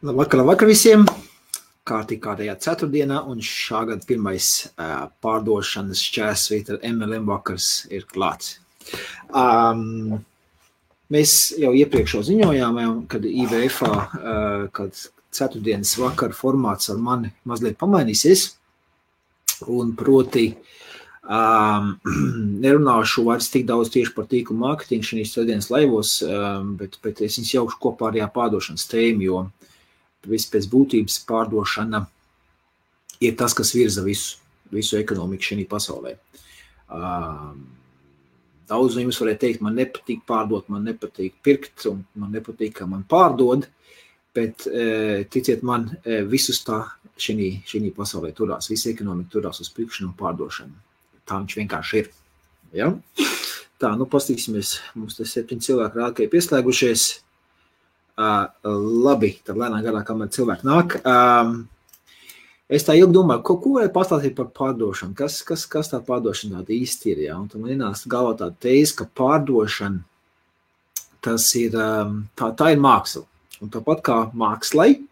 Labvakar visiem! Kārtējā ceturtdienā un šā gada pirmais pārdošanas šķērsvītra MLM vakars ir klāts. Mēs jau iepriekš ziņojām, kad IVF-ā, kad ceturtdienas vakara formāts ar mani mazliet pamainīsies, un proti nerunāšu vairs tik daudz tieši par tīklu mārketingu šīs ceturtdienas laivos, bet es viņus jaukšu kopā ar pārdošanas tēmu, jo viss pēc būtības pārdošana ir tas, kas virza visu ekonomiku šajā pasaulē. Daudz no jums varētu teikt, man nepatīk pārdot, man nepatīk pirkt, un man nepatīk, ka man pārdod, bet ticiet man, visus tā šajā pasaulē turās, visa ekonomika turās uz pirkšanu un pārdošanu. Tā viņš vienkārši ir. Ja? Tā, pastīsimies, mums te 7 cilvēki rāda, ka ir pieslēgušies. Labi, tad lēnā garā, kamēr cilvēki nāk. Es tā ilgi domāju, ko varētu pastāstīt par pārdošanu, kas tā pārdošana tāda īsti ir, ja? Un tad man ienāca galvā tāda tēze, ka pārdošana, tas ir, tā ir māksla. Un tāpat kā mākslai,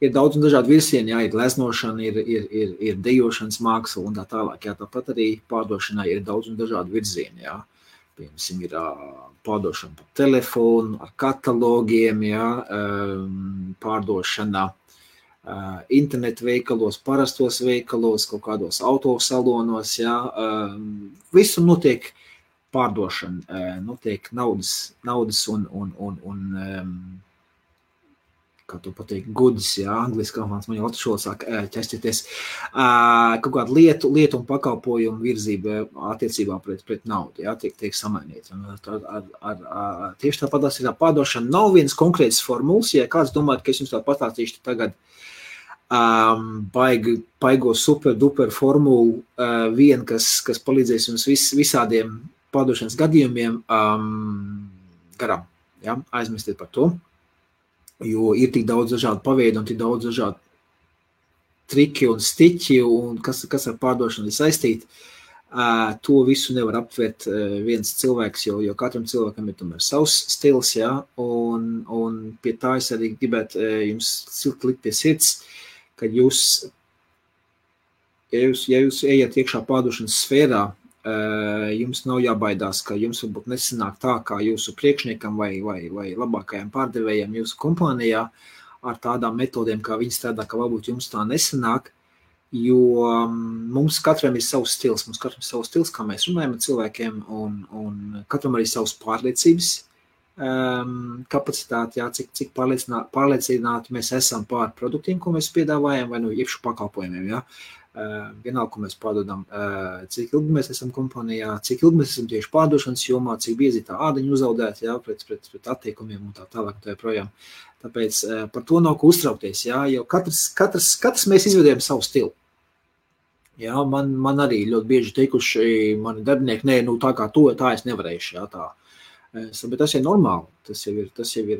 ir daudz un dažādi virsieni, jā, ir leznošana, ir dejošanas māksla un tā tālāk, jā, tāpat arī pārdošanai ir daudz un dažādi virzieni, jā. Piemēram, ir pārdošana pa telefonu, ar katalogiem, ja, pārdošana internetu veikalos, parastos veikalos, kaut kādos autosalonos, ja, visu notiek pārdošana, notiek naudas un kā to pateikt, goods, ja, angliski, man jau atšķola sāk ķesties, kaut kādu lietu un pakalpojumu virzība attiecībā pret naudu, ja, tiek samainīta. Tieši tāpatās ir tā pārdošana, nav viens konkrēts formulas, ja kāds domājat, ka es jums tā pastāstīšu tagad baigo super duper formulu, kas palīdzēs jums visādiem pārdošanas gadījumiem garām, ja, aizmirstiet par to. Jo ir tik daudz dažādu paveidu un tik daudz dažādu triki un stiķi, un kas ar pārdošanu ir saistīti, to visu nevar aptvert viens cilvēks, jo katram cilvēkam ir tomēr savs stils, ja, un pie tā es arī gribētu jums silti likt pie sirds, ka ja jūs ejat iekšā pārdošanas sfērā, jums nav jābaidās, ka jums varbūt nesanāk tā, kā jūsu priekšniekam vai labākajiem pārdevējiem jūsu kompānijā ar tādām metodēm, kā viņi strādā, ka varbūt jums tā nesanāk, jo mums katram ir savs stils, kā mēs runājam ar cilvēkiem, un katram arī savs pārliecības kapacitāti, jā, cik pārliecināti mēs esam pār produktiem, ko mēs piedāvājam, vai iekšu pakalpojumiem, jā. Vienalga, ko mēs pārdodam, cik ilgi mēs esam kompānijā, cik ilgi mēs esam tieši pārdošanas jomā, cik biezi tā ādaņa uzaudzēta, jā, pret attiekumiem un tā tālāk un tā projām. Tāpēc par to nav ko uztraukties, jā, jo katrs mēs izvedējam savu stilu. Jā, man arī ļoti bieži teikuši mani darbinieki, tā kā to, tā es nevarēšu, jā, tā. Bet tas ir normāli, tas jau ir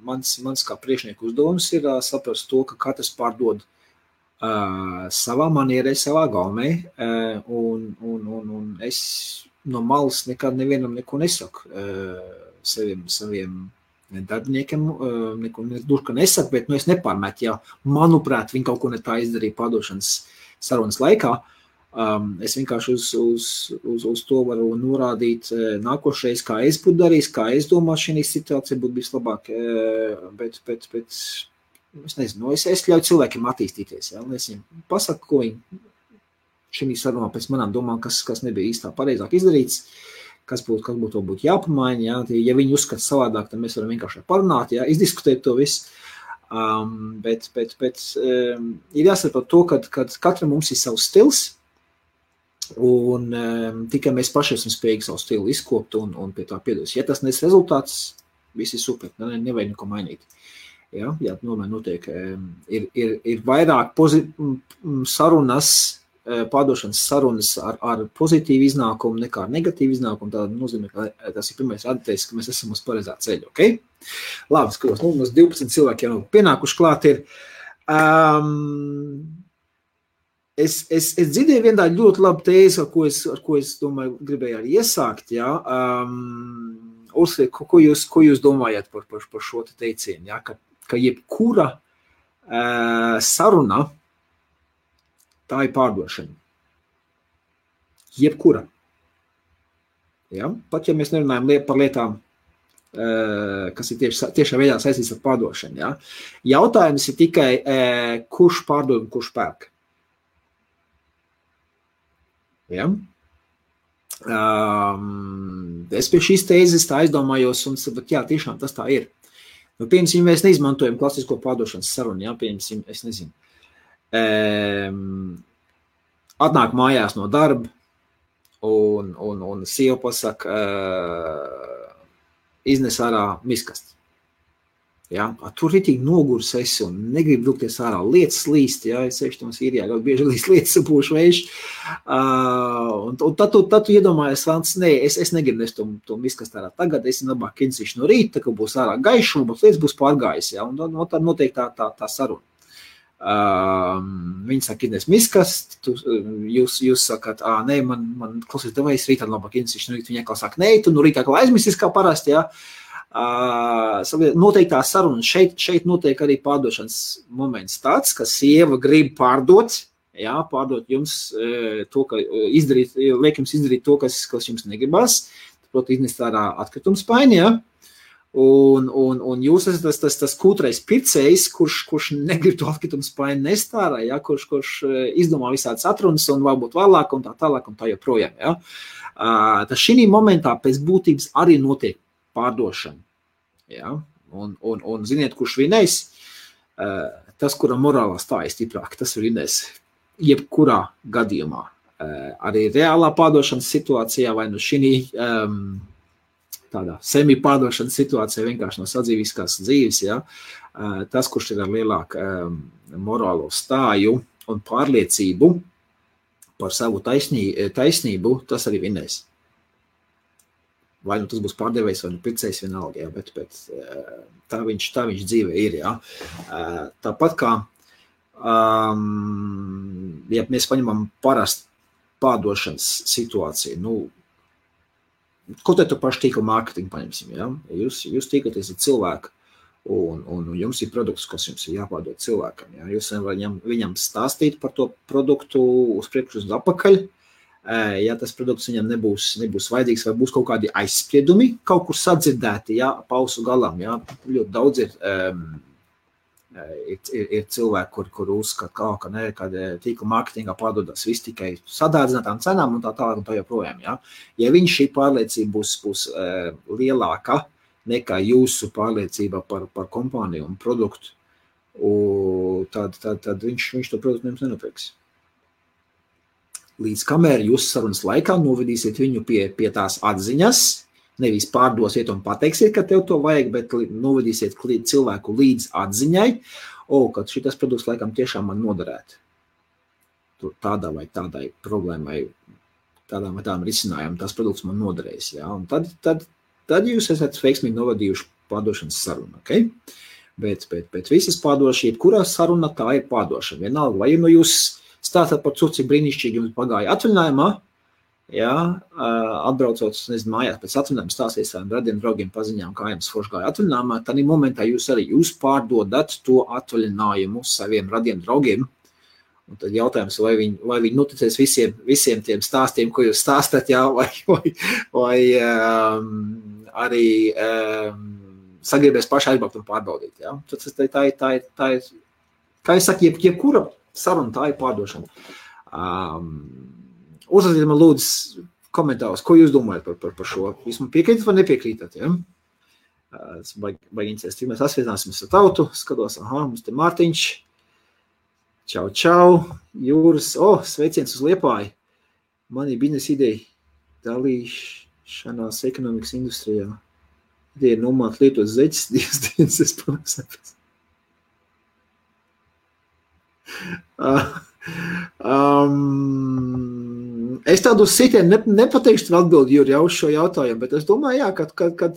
mans kā priekšnieku uzdevums ir saprast to, ka katrs pārdod savā manierē, savā gaumē, un es no malas nekad nevienam neko nesaku saviem darbiniekiem, neko nesaku, bet es nepārmetu, ja manuprāt, viņi kaut ko ne tā izdarīja pārdošanas sarunas laikā, es vienkārši uz to varu norādīt nākošreiz, kā es būtu darījis, kā es domāju, šī situācija būtu bijis labāk, bet es nezinu, es ļauju cilvēkiem attīstīties, ja, un es viņiem pasaku, ko viņi šī sarunā pēc manām domām, kas nebija īstā pareizāk izdarīts, kas būtu jāpamaina, ja, ja viņi uzskata savādāk, tad mēs varam vienkārši parunāt, ja, izdiskutēt to visu, bet ir jāsaprot to, ka katram mums ir savs stils, un tikai mēs paši esam spējīgi savu stilu izkopt un pie tā piedos. Ja tas nes rezultāts, viss ir super, nevajag neko mainīt. Jā, tomēr notiek, ir vairāk sarunas, pārdošanas sarunas ar pozitīvu iznākumu nekā ar negatīvu iznākumu, tā nozīmē, ka tas ir pirmais rādītājs, ka mēs esam uz pareizā ceļa, ok? Labi, skatos, mums 12 cilvēki jau pienākuši klāt ir. Es dzirdēju vienu tādu ļoti labu tēzi, ar ko es domāju, gribēju arī iesākt, jā. Uzsliek, ko jūs domājat par šo teicienu, jā, ka ka jebkura saruna, tā ir pārdošana. Jebkura. Ja? Pat ja mēs nerunājam par lietām, kas ir tiešā veidā saistīts ar pārdošanu. Ja? Jautājums ir tikai, kurš pārdod un kurš pērk. Ja? Es pie šīs tēzes tā aizdomājos, un jā, tiešām tas tā ir. Nu, piemēram, mēs neizmantojam klasisko pārdošanas sarunu, ja? Piemēram, es nezinu. Atnāk mājās no darba, un sieva pasaka, iznes ārā miskasti. Ja? Tur ritīgi nogurs esi un negrib brukties ārā. Lietas līst, ja? Es sevišķi mums īrijā ļoti bieži līst lietas sapūšu vējš. Un tad tu iedomājies, Vants, nē, es negribu nest to miskasti ārā tagad, es labāk kinsīšu no rīta, ka būs ārā gaišuma, bet lietas būs pārgājis. Ja? Un tad notiek tā saruna. Viņi saka, ines miskast, jūs sakat, nē, man klausies devais, rītā labāk inesīšu, no rīta viņi atkal saka, nē, tu no rītā atkal aizmisis kā parasti, jā. Noteikti tā saruna, šeit notiek arī pārdošanas moments tāds, ka sieva grib pārdot, jā, pārdot jums to, ka liek jums izdarīt to, kas jums negribas, proti iznest ārā atkritumspaini, jā. Un jūs esat tas kūtrais pircējs, kurš negrib to atkritumspaini nest ārā, ja? kurš izdomā visādas atrunas un varbūt vēlāk un tā tālāk un tā joprojām. Ja? Tas šī momentā pēc būtības arī notiek pārdošana. Ja? Un ziniet, kurš vinēs? Tas, kura morālā stāja stiprāk, tas vinēs jebkurā gadījumā. Arī reālā pārdošanas situācijā vai no šī tādā semi-pārdošanas situācijā vienkārši no sadzīviskās dzīves, ja, tas, kurš ir ar lielāku morālo stāju un pārliecību par savu taisnību, tas arī vinēs. Vai nu tas būs pārdevējs vai nu pircējs vienalga, ja, bet tā viņš dzīve ir. Ja. Tāpat kā, ja mēs paņemam parastu pārdošanas situāciju, nu, ko te tu paši tīkla mārketingu paņemsim, ja? Jūs tīkaties ar cilvēku un jums ir produkts, kas jums ir jāpārdod cilvēkam, ja? Jūs viņam stāstīt par to produktu uz priekšu uz apakaļ, ja tas produkts viņam nebūs vajadzīgs vai būs kaut kādi aizspriedumi, kaut kur sadzirdēti, ja, pausu galam, ja? Ļoti daudz ir cilvēki, kur uzskata, ka tīkla mārketingā pārdodas viss tikai sadārdzinātām cenām un tā tālāk un tā joprojām. Ja, ja viņš šī pārliecība būs lielāka nekā jūsu pārliecība par kompāniju un produktu, tad viņš to produktu jums nenopirks. Līdz kamēr jūs sarunas laikā novedīsiet viņu pie tās atziņas, nevis pārdosiet un pateiksiet, ka tev to vajag, bet novedīsiet cilvēku līdz atziņai, ka šitas produkts laikam tiešām man noderētu. Tur tādā vai tādai problēmai, tādām vai tādām risinājumam, tas produkts man noderēs. Ja? Un tad jūs esat veiksmīgi novadījuši pārdošanas sarunu. Okay? Bet visas pārdošana, jebkurā saruna tā ir pārdošana. Vienalga, vai nu jūs stāstat par to, cik brīnišķīgi jums pagāja atvaļinājumā, ja, atbraucot, nezinu, mājās pēc atvaļinājuma stāstīs saviem radiem draugiem paziņām, kā jums forši gāja atvaļinājumā, tad momentā jūs pārdodat to atvaļinājumu saviem radiem draugiem. Un tad jautājums, vai viņi noticēs visiem tiem stāstiem, ko jūs stāstat, jā, vai arī sagribēs paši aizbraukt un pārbaudīt. Jā. Tā ir, kā es saku, jebkura saruna, tā ir pārdošana. Uzrakstiet man lūdzu komentārus, ko jūs domājat par šo. Jūs man piekrītat vai nepiekrītat, ja? Tas baigi interesēs, cik mēs asvietināsimies ar tautu. Skatos, mums te Mārtiņš. Čau. Jūras. Sveiciens uz Liepāju. Man ir biznesa ideja dalīšanās ekonomikas industrijā. Ideja ir nomāt lietot zeķis, dienas es pavisapēc. Es tādu sitienu nepateikšu atbildi, Juri, jau uz šo jautājumu, bet es domāju, jā, kad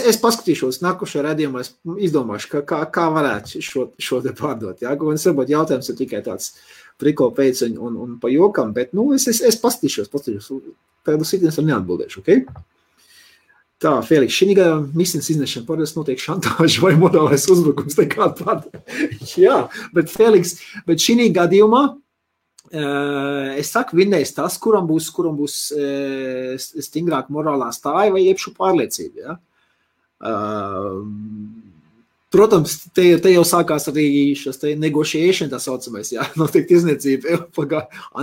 es paskatīšos nākošajā redzījumā, es izdomāšu, kā varētu šo te pārdot, jā, un es varbūt jautājums ir tikai tāds priko pēc un pa jokam, bet, es paskatīšos, tādu sitienu es neatbildēšu, ok? Tā, Feliks, šī misijas iznešana parasti notiek šantāža vai morālais uzbrukums nekāda tāda. Jā, bet Feliks, bet šī gadījumā es saku, vinnēs tas, kuram būs stingrāk morālā stāja vai iepšu pārliecība. Ja? Protams, te jau sākās arī šis negotiation, tā saucamais, jā, notiek tirzniecība,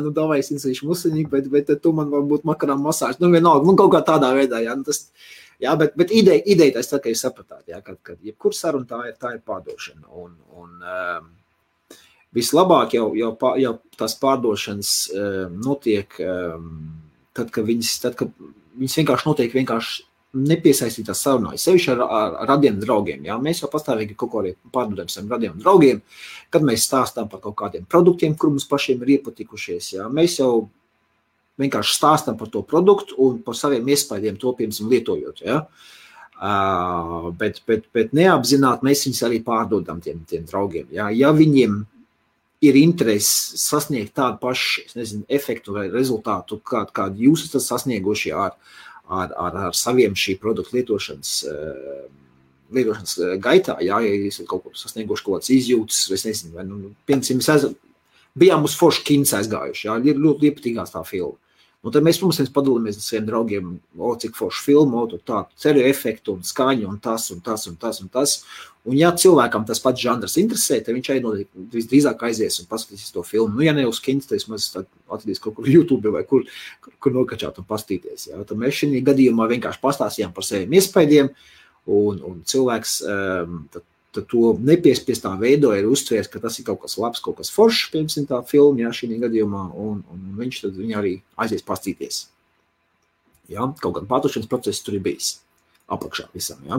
nu davai es insīšu musiņīgi, bet tu man varbūt makarām masāžu, nu vienalga, nu kaut kā tādā veidā, jā, nu tas, jā, bet ideja tas tā, ka jūs sapratāt, jā, kad jebkur saruna tā ir pārdošana, un vislabāk jau tās pārdošanas notiek, tad, kad viņas vienkārši notiek nepiesaistītās sarunājas, sevišķi ar radiem draugiem. Jā? Mēs jau pastāvīgi kaut ko arī pārdodam saviem radiem draugiem, kad mēs stāstām par kaut kādiem produktiem, kur mums pašiem ir iepatikušies. Jā? Mēs jau vienkārši stāstām par to produktu un par saviem iespaidiem to, piemēram, lietojot. Jā? Bet neapzināti mēs viņus arī pārdodam tiem draugiem. Jā? Ja viņiem ir interesi sasniegt tādu pašu, efektu vai rezultātu, kādu jūs esat sasnieguši ar saviem šī produktu lietošanas gaitā, jā, ja jūs kaut ko sasnieguši kaut kāds izjūtas, es nezinu, vai, piemēram, bijām uz foršu kins aizgājuši, jā, ir ļoti iepatīgās tā filma. Un tad mēs, protams, padalāmies ar saviem draugiem, cik foršu filmu, tādu ceļu efektu un skaņu un tas. Un ja cilvēkam tas pats žanrs interesē, tad viņš arī visdrīzāk aizies un paskatīsies to filmu. Nu, ja ne uz kins, tad mēs atradīs kaut kur YouTube vai kur nokačāt un pastīties. Ja? Tad mēs šī gadījumā vienkārši pastāstījām par saviem iespaidiem, un cilvēks tad to nepiespiestā veido ir uztvērs, ka tas ir kaut kas labs, kaut kas foršs, piemēram, tā filma, ja, šī gadījumā, un viņš tad viņu arī aizies pastīties. Ja? Kaut gan pārdošanas process tur ir bijis apakšā visam. Ja,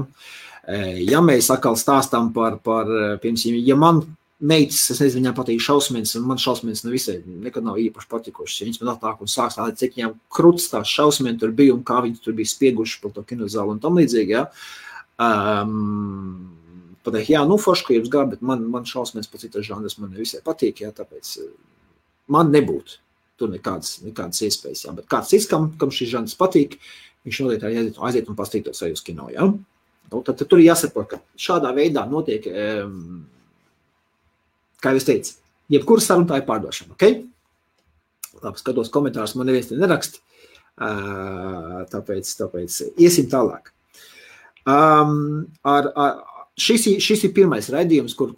ja mēs atkal stāstām par piemēram, ja man meitas, es nezinu, viņām patīk šausmens, un man šausmens nekad nav īpaši patikušas. Ja viņas man atnāk un sāk stādīt, cik viņām kruts tās šausmeni tur bija un kā viņi tur bija spieguši par to kinozālu un tam līdzīgi. Ja. Pateikt, jā, nu forši, ka jums gāja, bet man šausmens par citas žanras man nevisai patīk, ja, tāpēc man nebūtu tur nekādas iespējas. Ja. Bet kāds cits, kam šis žanrs patīk, viņš noteikti aiziet un pastītos arī uz kino. Ja? Tad tur ir jāsaprot, ka šādā veidā notiek, kā jau es teicu, jebkura saruna tā ir pārdošana. Okay? Labi, skatos komentārus, man neviens te nerakst, tāpēc iesim tālāk. Šis ir pirmais raidījums, kur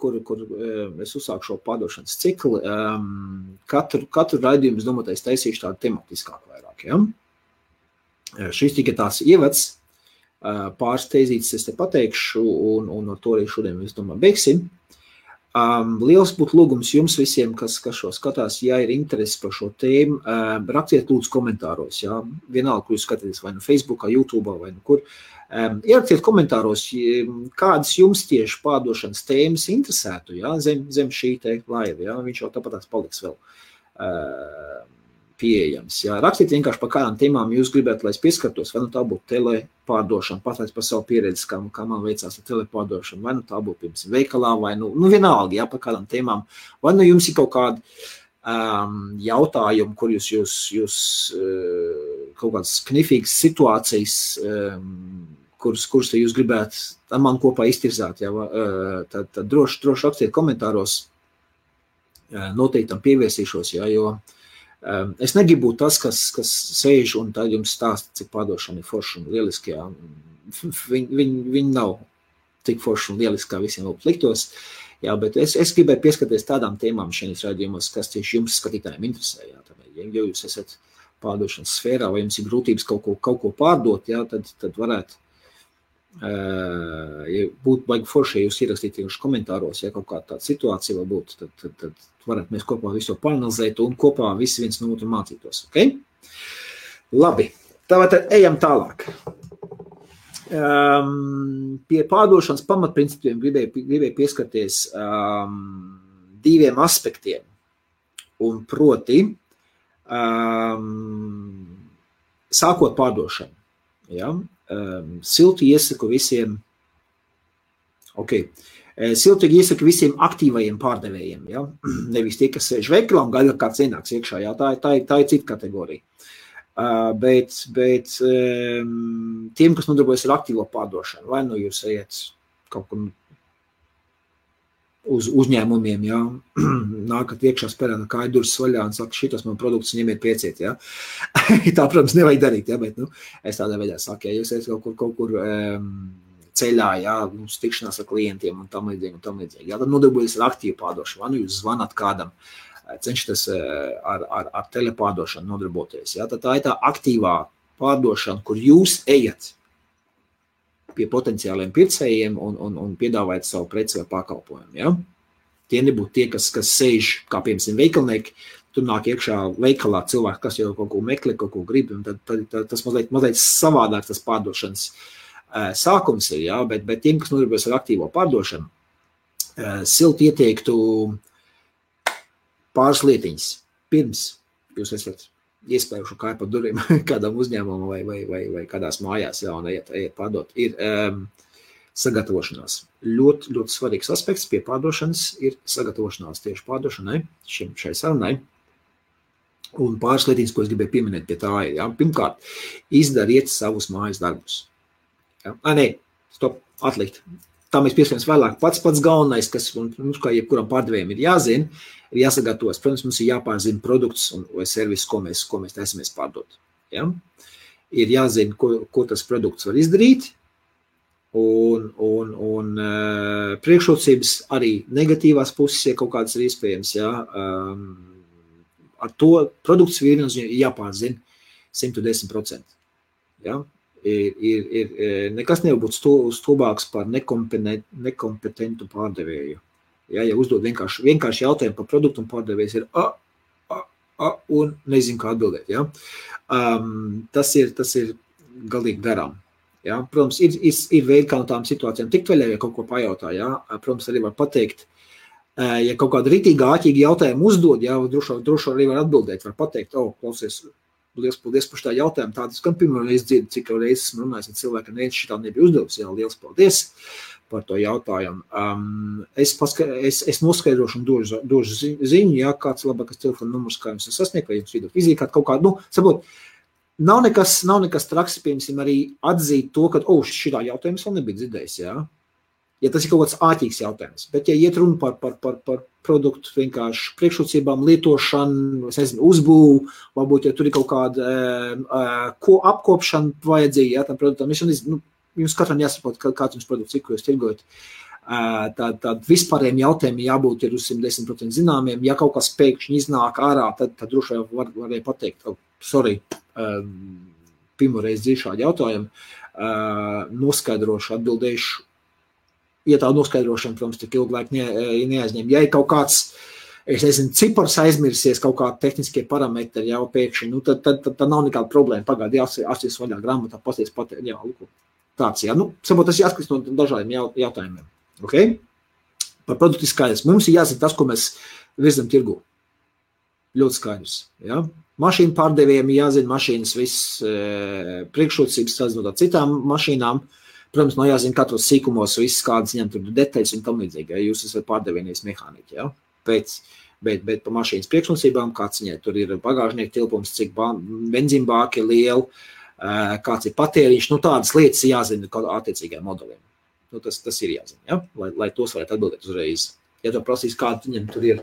es uzsāku šo pārdošanas ciklu. Katru raidījumu, es domāju, es taisīšu tādu tematiskāku vairāk. Ja? Šis tika tās ievads, pāris teizītes es te pateikšu, un ar to arī šodien, es domāju, beigsim. Liels būtu lūgums jums visiem, kas šo skatās, ja ir interesi par šo tēmu, rakstiet lūdzu komentāros, ja? Vienalga, kur jūs skatāties, vai no Facebookā, YouTube'ā, vai no kur. Ierakstiet komentāros, kādas jums tieši pārdošanas tēmas interesētu, ja? Zem šī te laiva, ja? Viņš jau tāpat paliks vēl pieejams. Ja? Rakstiet vienkārši par kādām tēmām jūs gribētu, lai es pieskartos, vai nu tā būtu telepārdošana, pateic par savu pieredzi, kā man veicās ar telepārdošanu, vai nu tā būtu, piemēram, veikalā, vai nu vienalga, ja, par kādām tēmām, vai nu jums ir kaut kādi jautājumi, kur jūs kaut kādas knifīgas situācijas, kuras jūs gribētu ar man kopā iztirzāt, ja? Tad droši rakstiet komentāros, noteikti tam pievērsīšos, ja? Jo es negribu būt tas, kas sēž un tad jums stāsta, cik pārdošana ir forša un lieliski. Ja? Viņi nav tik forši un lieliski, kā visiem liktos. Jā, bet es gribēju pieskaties tādām tēmām šajos raidījumos, kas tieši jums skatītājiem interesē. Jā, ja jūs esat pārdošanas sfērā vai jums ir grūtības kaut ko pārdot, jā, tad varētu būt baigi forši, ja jūs ierakstīt komentāros, ja kaut kāda tāda situācija var būt, tad varētu mēs kopā visu pāranalizēt un kopā visi viens no otru mācītos. Okay? Labi, tad ejam tālāk. Pie pārdošanas pamatprincipiem gribēju pieskarties diviem aspektiem. Un proti, sākot pārdošanu. Ja? Silti iesaku visiem, siltīgi iesaku visiem aktīvajiem pārdevējiem. Ja? Nevis tie, kas sēž veikalā un gaida, kāds ienāks iekšā. Ja? Tā ir cita kategorija. Bet tiem, kas nodarbojas ar aktīvo pārdošanu, vai nu jūs ejat kaut kur uz uzņēmumiem, ja, nākat iekšā spērā kāju durvis vaļā un saka, šitas man produkts ņemiet pieciet, ja. Tā, protams, nevajag darīt, ja, bet, es tādā veidā saku, ja jūs ejat kaut kur ceļā, ja, tikšanās ar klientiem un tam līdzīgi, ja, tad nodarbojas ar aktīvu pārdošanu, vai nu jūs zvanat kādam, cenšaties ar telepārdošanu nodarboties, ja, tad tā ir tā aktīvā pārdošana, kur jūs ejat pie potenciāliem pircējiem un piedāvājat savu preci vai pakalpojumu. Ja? Tie nebūtu tie, kas sēž, kā piemēram veikalnieki, tur nāk iekšā veikalā cilvēki, kas jau kaut ko meklē, kaut ko grib, un tad tas mazliet savādāk tas pārdošanas sākums ir, ja? Bet tiem, kas nodarbojas ar aktīvo pārdošanu, silti ieteiktu pāris lietiņas. Pirms jūs esat iespējuši kāju pa durvīm kādam uzņēmumam vai kādās mājās, ja, un ejiet pārdot, ir sagatavošanās. Ļoti, ļoti svarīgs aspekts pie pārdošanas ir sagatavošanās tieši pārdošanai, šai sarunai. Un pāris lietiņas, ko es gribēju pieminēt pie tā ir, ja. Pirmkārt, izdariet savus mājas darbus. Ja. Stop, atlikt. Tā mēs pieskaramies vēlāk. Pats galvenais, kas mums kā jebkuram pārdevējiem ir jāzina, ir jāsagatavos. Protams, mums ir jāpārzina produkts vai servis, ko mēs taisamies pārdot. Ja? Ir jāzina, ko tas produkts var izdarīt, un priekšrocības arī negatīvās puses, ja kaut kādas ir iespējams. Ja? Ar to produkts ir jāpārzina 110%. Ja? Ir nekas nevar būt stulbāks par nekompetentu pārdevēju. Ja uzdod vienkārši jautājumu par produktu un pārdevējs ir un nezinu, kā atbildēt. Ja? Tas ir galīgi garām. Ja? Protams, ir veidi, kā no tām situācijām tikt vaļā, ja kaut ko pajautā. Ja? Protams, arī var pateikt, ja kaut kādu ritīgā, āķīgi jautājumu uzdod, ja? droši arī var atbildēt, var pateikt, klausies, liels paldies par šitā jautājumu. Tādas, gan pirmo reizi dzirdu, cik jau reizes esmu runājis ar cilvēkiem, neviens šitā nebija uzdevusi. Jā, liels paldies par to jautājumu. Es noskaidrošu un došu ziņu, ja kāds labākas telefona numurs, kā jums sasniegt, vai jums vidot fizīkāt kaut kādu, saprot, nav nekas traks, piemēram, arī atzīt to, ka, šitā jautājumu es vēl nebija dzirdējis, jā. Ja tas ir kaut kāds āķīgs jautājums, bet ja iet runa par produktu vienkārši priekšrocībām, lietošanu, es nezinu, uzbūvu, varbūt, ja tur ir kaut kāda apkopšana vajadzīga, ja, tam produktam, jums katram jāsaprot, kāds jums produkts ir, ko jūs tirgojat. Tad vispārējiem jautājumiem jābūt ir uz 110% zināmiem, ja kaut kas pēkšņi iznāk ārā, tad droši varēja pateikt, sorry, pirmoreiz dzīvi šādi jautājumi, noskaidrošu, atbildēšu. Ja tā noskaidrošana, protams, tik ilgu laiku neaizņem. Ja ir kaut kāds, es nezinu, cipars aizmirsies, kaut kādi tehniskie parametri jau pēkšņi, tad nav nekāda problēma. Pagaidi, jāsties vaļā grāmatā, pasties pateikt, jā, lūk, tāds, jā. Saprot, tas jāskatās no dažādiem jautājumiem. Okay? Par produktu skaidrs. Mums ir jāzina tas, ko mēs virzam tirgu. Ļoti skaidrs, jā. Mašīnu pārdevējiem jāzina mašīnas viss priekšrocības sazinot ar citām mašīnām. Protams, jāzina katros sīkumos, viss kādas ņem tur detaļas un tam līdzīgi, ja jūs esat pārdevējies mehāniķi, ja? Bet pa mašīnas priekšnosībām, kāds viņai tur ir bagāžnieku tilpums, cik benzīna bāki ir liela, kāds ir patēriņš, tādas lietas jāzina attiecīgajiem modeliem. Tas ir jāzina, ja? Lai tos varētu atbildēt uzreiz. Ja tu prasīs, kāda viņam tur ir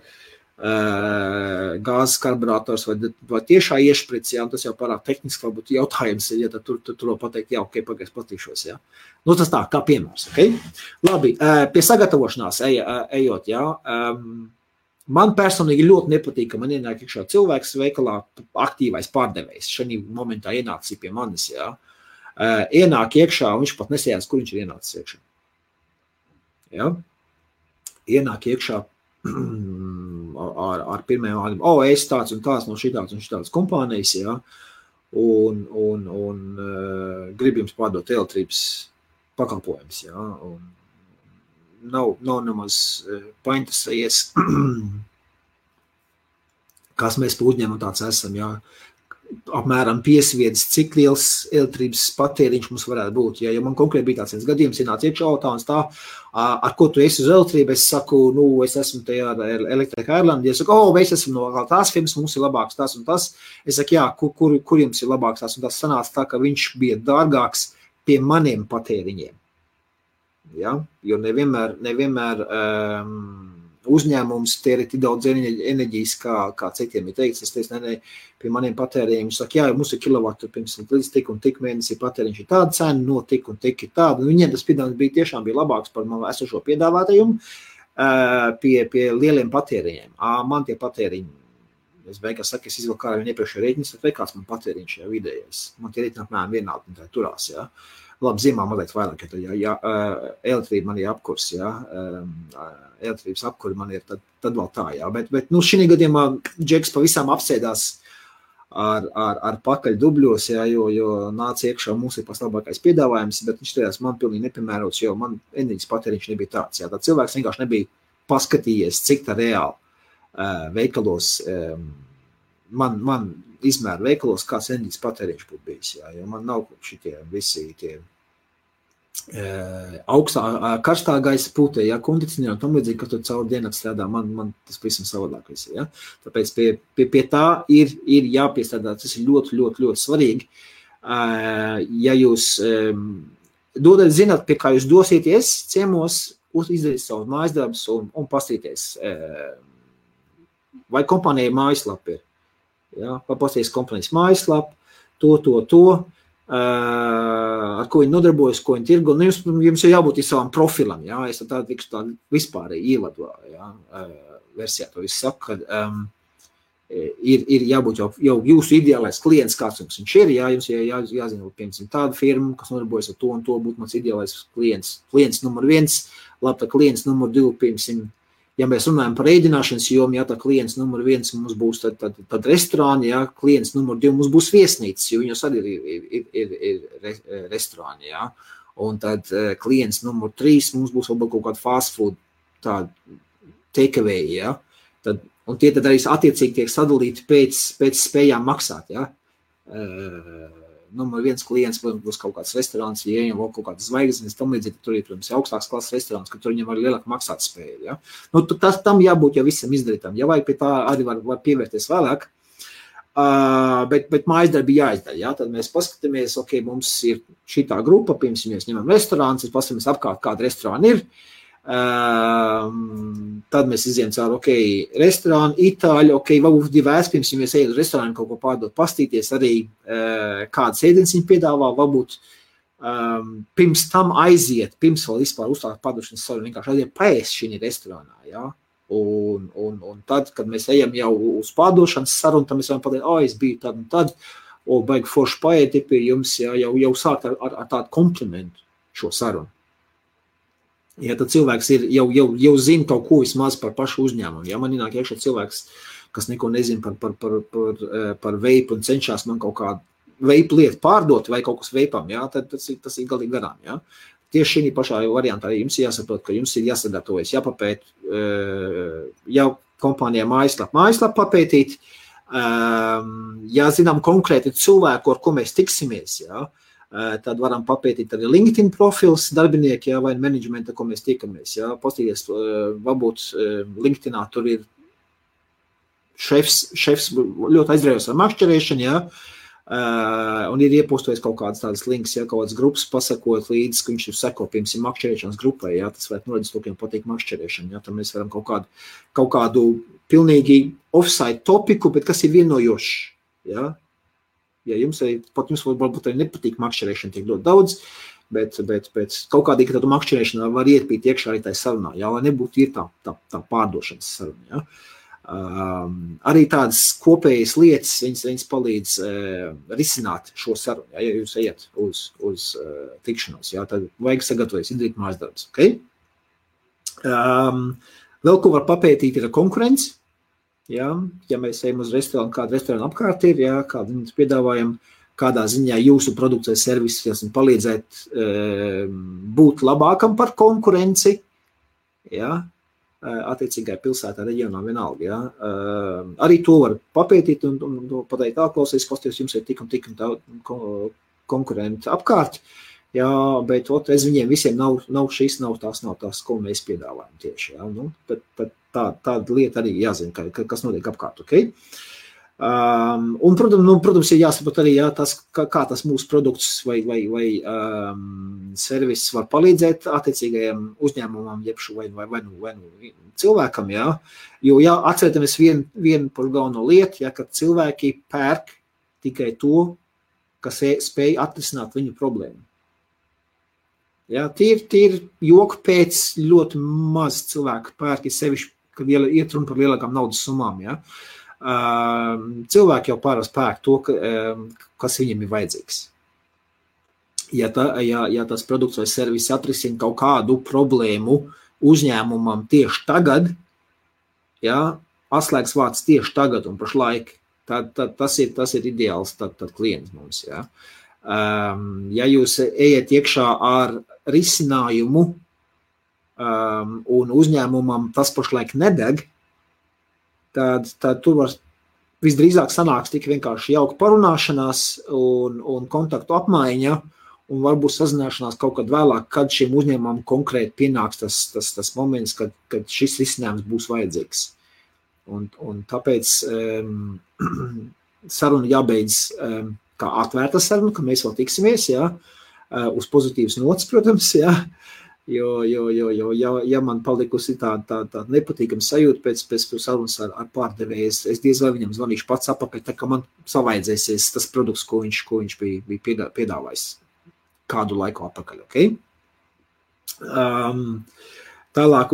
gāzes karburators vai tiešā iešprits, ja? Tas jau pārāk tehniski varbūt jautājums ir, ja tur var pateikt, jā, ok, pagaids patīšos, ja? Tas tā, kā piemērs, ok? Labi, pie sagatavošanās ejot, ja? Man personīgi ļoti nepatīk, ka man ienāk iekšā cilvēks veikalā aktīvais pārdevējs. Šajā momentā ienācis pie manis, ja? Ienāk iekšā, un viņš pat nesējās, kur viņš ir ienācis iekšā. Ja? Ienāk iekšā ar pirmajām vārdiem, es tāds un tāds no šitādas kompānijas, ja, un grib jums pārdot elektrības pakalpojums, ja, un nav nemaz painteresējies, kas mēs pa uzņēmumu tāds esam, ja, apmēram piesviedis, cik liels elektrības patēriņš mums varētu būt. Ja man konkrēti bija tāds viens gadījums, ienāca iekšā autāns tā, ar ko tu esi uz elektrību, es saku, es esmu tajā Electric Ireland, es saku, mēs esam no tās firmas, mums ir labāks tas un tas. Es saku, jā, kur jums ir labāks tas un tas sanāca tā, ka viņš bija dārgāks pie maniem patēriņiem. Ja? Jo nevienmēr uzņēmums tēri tik daudz enerģijas, kā citiem ir teikts. Es teicu, ne, pie maniem patēriņiem saka, jā, mums ir kilovatu, piemēram, līdz tik un tik mēnesī patēriņš ir tāda cena, no tik un tik ir tāda. Viņiem tas piedāvājums tiešām bija labāks par man esošo piedāvātājumu pie lieliem patēriņiem. Man tie patēriņi, es beigās saku, es izvilku kā viņu iepriekšējo rēķinu, vai kāds man patēriņš jau vidējais. Man tie rēķini apmēram vienādi, tā turās, jā. Labi, ziemā mazliet vairāk, ja elektrība man ir apkurs, ja, elektrības apkuri man ir, tad vēl tā, jā, bet šī gadījumā Džeks pavisam apsēdās ar pakaļ dubļos, jā, jo nāca iekšā mums ir paslabākais piedāvājums, bet viņš tajās man pilnīgi nepiemērots, jo man enerģijas patēriņš nebija tāds, jā, tā cilvēks vienkārši nebija paskatījies, cik tā reāli veikalos, man izmēra veikalos, kāds enerģijas patēriņš būtu bijis, jā, jo man nav šitie visi tie augstā, karstā gaisa pūtē, ja, kondicionieri un tam līdzīgi, ka tu caur diennakti strādā, man tas pavisam savādāk visi, ja. Tāpēc pie tā ir jāpiestrādā, tas ir ļoti, ļoti, ļoti svarīgi. Ja jūs zināt, pie kā jūs dosieties ciemos, izdarīt savu mājas darbus un pastīties, vai kompānija mājaslapa ir. Ja, papasties kompānijas mājaslapu, to, ar ko viņi nodarbojas, ko viņi tirgo. Jums ir jābūt savam profilam, ja, es tādu tikšu tādu vispārēji ievadu, ja, versijā to visu saku, kad ir jābūt jau jūsu ideālais klients, kāds jums viņš ir, ja, jums jāzina, piemēram, tāda firma, kas nodarbojas ar to un to, būtu mans ideālais klients numur 1, labi, tā klients numur 2, piemēram, ja mēs runājam par ēdināšanas jomu, ja tā klients numur 1 mums būs tad restorāni, ja klients numur 2 mums būs viesnīcas, jo viņos arī ir restorāni, ja. Un tad klients numur 3 mums būs vēl kaut kāda fast food, tāda takeaway, ja. Un tie tad arī attiecīgi tiek sadalīti pēc spējām maksāt, ja. Numur 1 klients būs kaut kāds restorāns, ja viņam vēl kaut kādas zvaigznes, tam līdzīgi, tur ir, protams, augstāks klases restorāns, ka tur viņam var lielāk maksāt spēju, ja. Tam jābūt jau visam izdarītam, ja vajag pie tā arī var pievērties vēlāk, bet mājasdarbi jāizdara, ja, tad mēs paskatāmies, ok, mums ir šitā grupa, pirms mēs ņemam restorāns, paskatāmies apkārt, kāda restorāna ir, tad mēs izējam caur, ok, restorānu, itāļu, ok, varbūt divēs, pirms mēs ejam uz restorānu kaut ko pārdot, pastīties arī, kādas ēdienas viņi piedāvā, varbūt pirms tam aiziet, pirms vēl vispār uzstākt pārdošanas sarunu, vienkārši aiziet paēst šī restorānā, ja, un tad, kad mēs ejam jau uz pārdošanas sarunu, tad mēs varam pateikt, es biju tad un tad, baigi forši paēti pie jums, ja, jau sākt ar tādu komplimentu šo sarunu. Ja tad cilvēks jau zina kaut ko vismaz par pašu uzņēmumu. Ja man ienāk iekšā cilvēks, kas neko nezina par veipu un cenšas man kaut kādu veipu lietu pārdot vai kaut kas veipam, ja, tad tas ir galīgi garām. Ja. Tieši šī pašā variantā arī jums jāsaprot, ka jums ir jāsadarbojas, jāpapēt, jau kompānijā mājaslapu papētīt, jāzinām konkrēti cilvēku, ar ko mēs tiksimies, ja. Tad varam papētīt arī LinkedIn profils darbinieki, ja, vai menedžmenta, ko mēs tikamies. Ja. Pastīties, varbūt LinkedInā tur ir šefs ļoti aizrējos ar makšķerēšanu, ja, un ir iepostojis kaut kādas tādas links, ja, kaut kādas grupas pasakot līdz, ka viņš ir seko, piemēram, makšķerēšanas grupai, ja, tas varētu norādīt, ka patīk makšķerēšana, ja, tad mēs varam kaut kādu pilnīgi offside topiku, bet kas ir vienojošs, ja. Ja jums varbūt arī nepatīk makšķerēšana tiek ļoti daudz, bet kaut kādīgi tādu makšķerēšanu var ietpīt iekšā arī tai sarunā, jā, lai nebūtu ir tā pārdošanas saruna, jā. Arī tādas kopējas lietas, viņas palīdz risināt šo sarunu, jā, ja jūs ejat uz tikšanos, jā, tad vajag sagatavoties, izdarīt mājas darbus, ok? Vēl ko var papētīt ir konkurence. Ja mēs ejam uz restorānu, kāda restorāna apkārt ir, ja, kādu mums piedāvājam, kādā ziņā jūsu produkts vai servis palīdzēt būt labākam par konkurenci, ja, attiecīgai pilsētā, reģionā vienalga. Ja? Arī to var papētīt un pateikt, klausies, jums ir tik un konkurenti apkārt, ja? Bet es viņiem visiem nav šis, nav tās, ko mēs piedāvājam tieši. Ja? Nu, tāda lieta arī jāzina, kas notiek apkārt, ok? Un, protams, ir jāsaprot arī, kā tas mūsu produkts vai servis var palīdzēt attiecīgajiem uzņēmumam, vai cilvēkam, jā. Jo, atcerētamies vienu par galveno lietu, kad cilvēki pērk tikai to, kas spēj atrisināt viņu problēmu. Jā, tīri joku pēc ļoti maz cilvēku pērk, sevišķi, kad iet runa par lielākām naudas summām, jā. Cilvēki jau pārāk pērk to, kas viņiem ir vajadzīgs. Ja tas produkts vai servis atrisina kaut kādu problēmu uzņēmumam tieši tagad, ja, atslēgas vārds tieši tagad un pašlaik, tad tas ir ideāls tad klients mums. Ja. Ja jūs ejat iekšā ar risinājumu un uzņēmumam tas pašlaik nedeg, tad tur var visdrīzāk sanāks tik vienkārši jauka parunāšanās un kontaktu apmaiņa, un varbūt sazināšanās kaut kad vēlāk, kad šiem uzņēmumam konkrēti pienāks tas moments, kad šis risinājums būs vajadzīgs. Un tāpēc saruna jābeidz kā atvērta saruna, ka mēs vēl tiksimies, jā, uz pozitīvas nots, protams, jā. Jo, ja man palikusi tāda nepatīkama sajūta pēc sarunas ar pārdevēju, es diez vai viņam zvanīšu pats apakaļ, tā kā man savaidzēsies tas produkts, ko viņš bija piedāvājis kādu laiku apakaļ, ok? Tālāk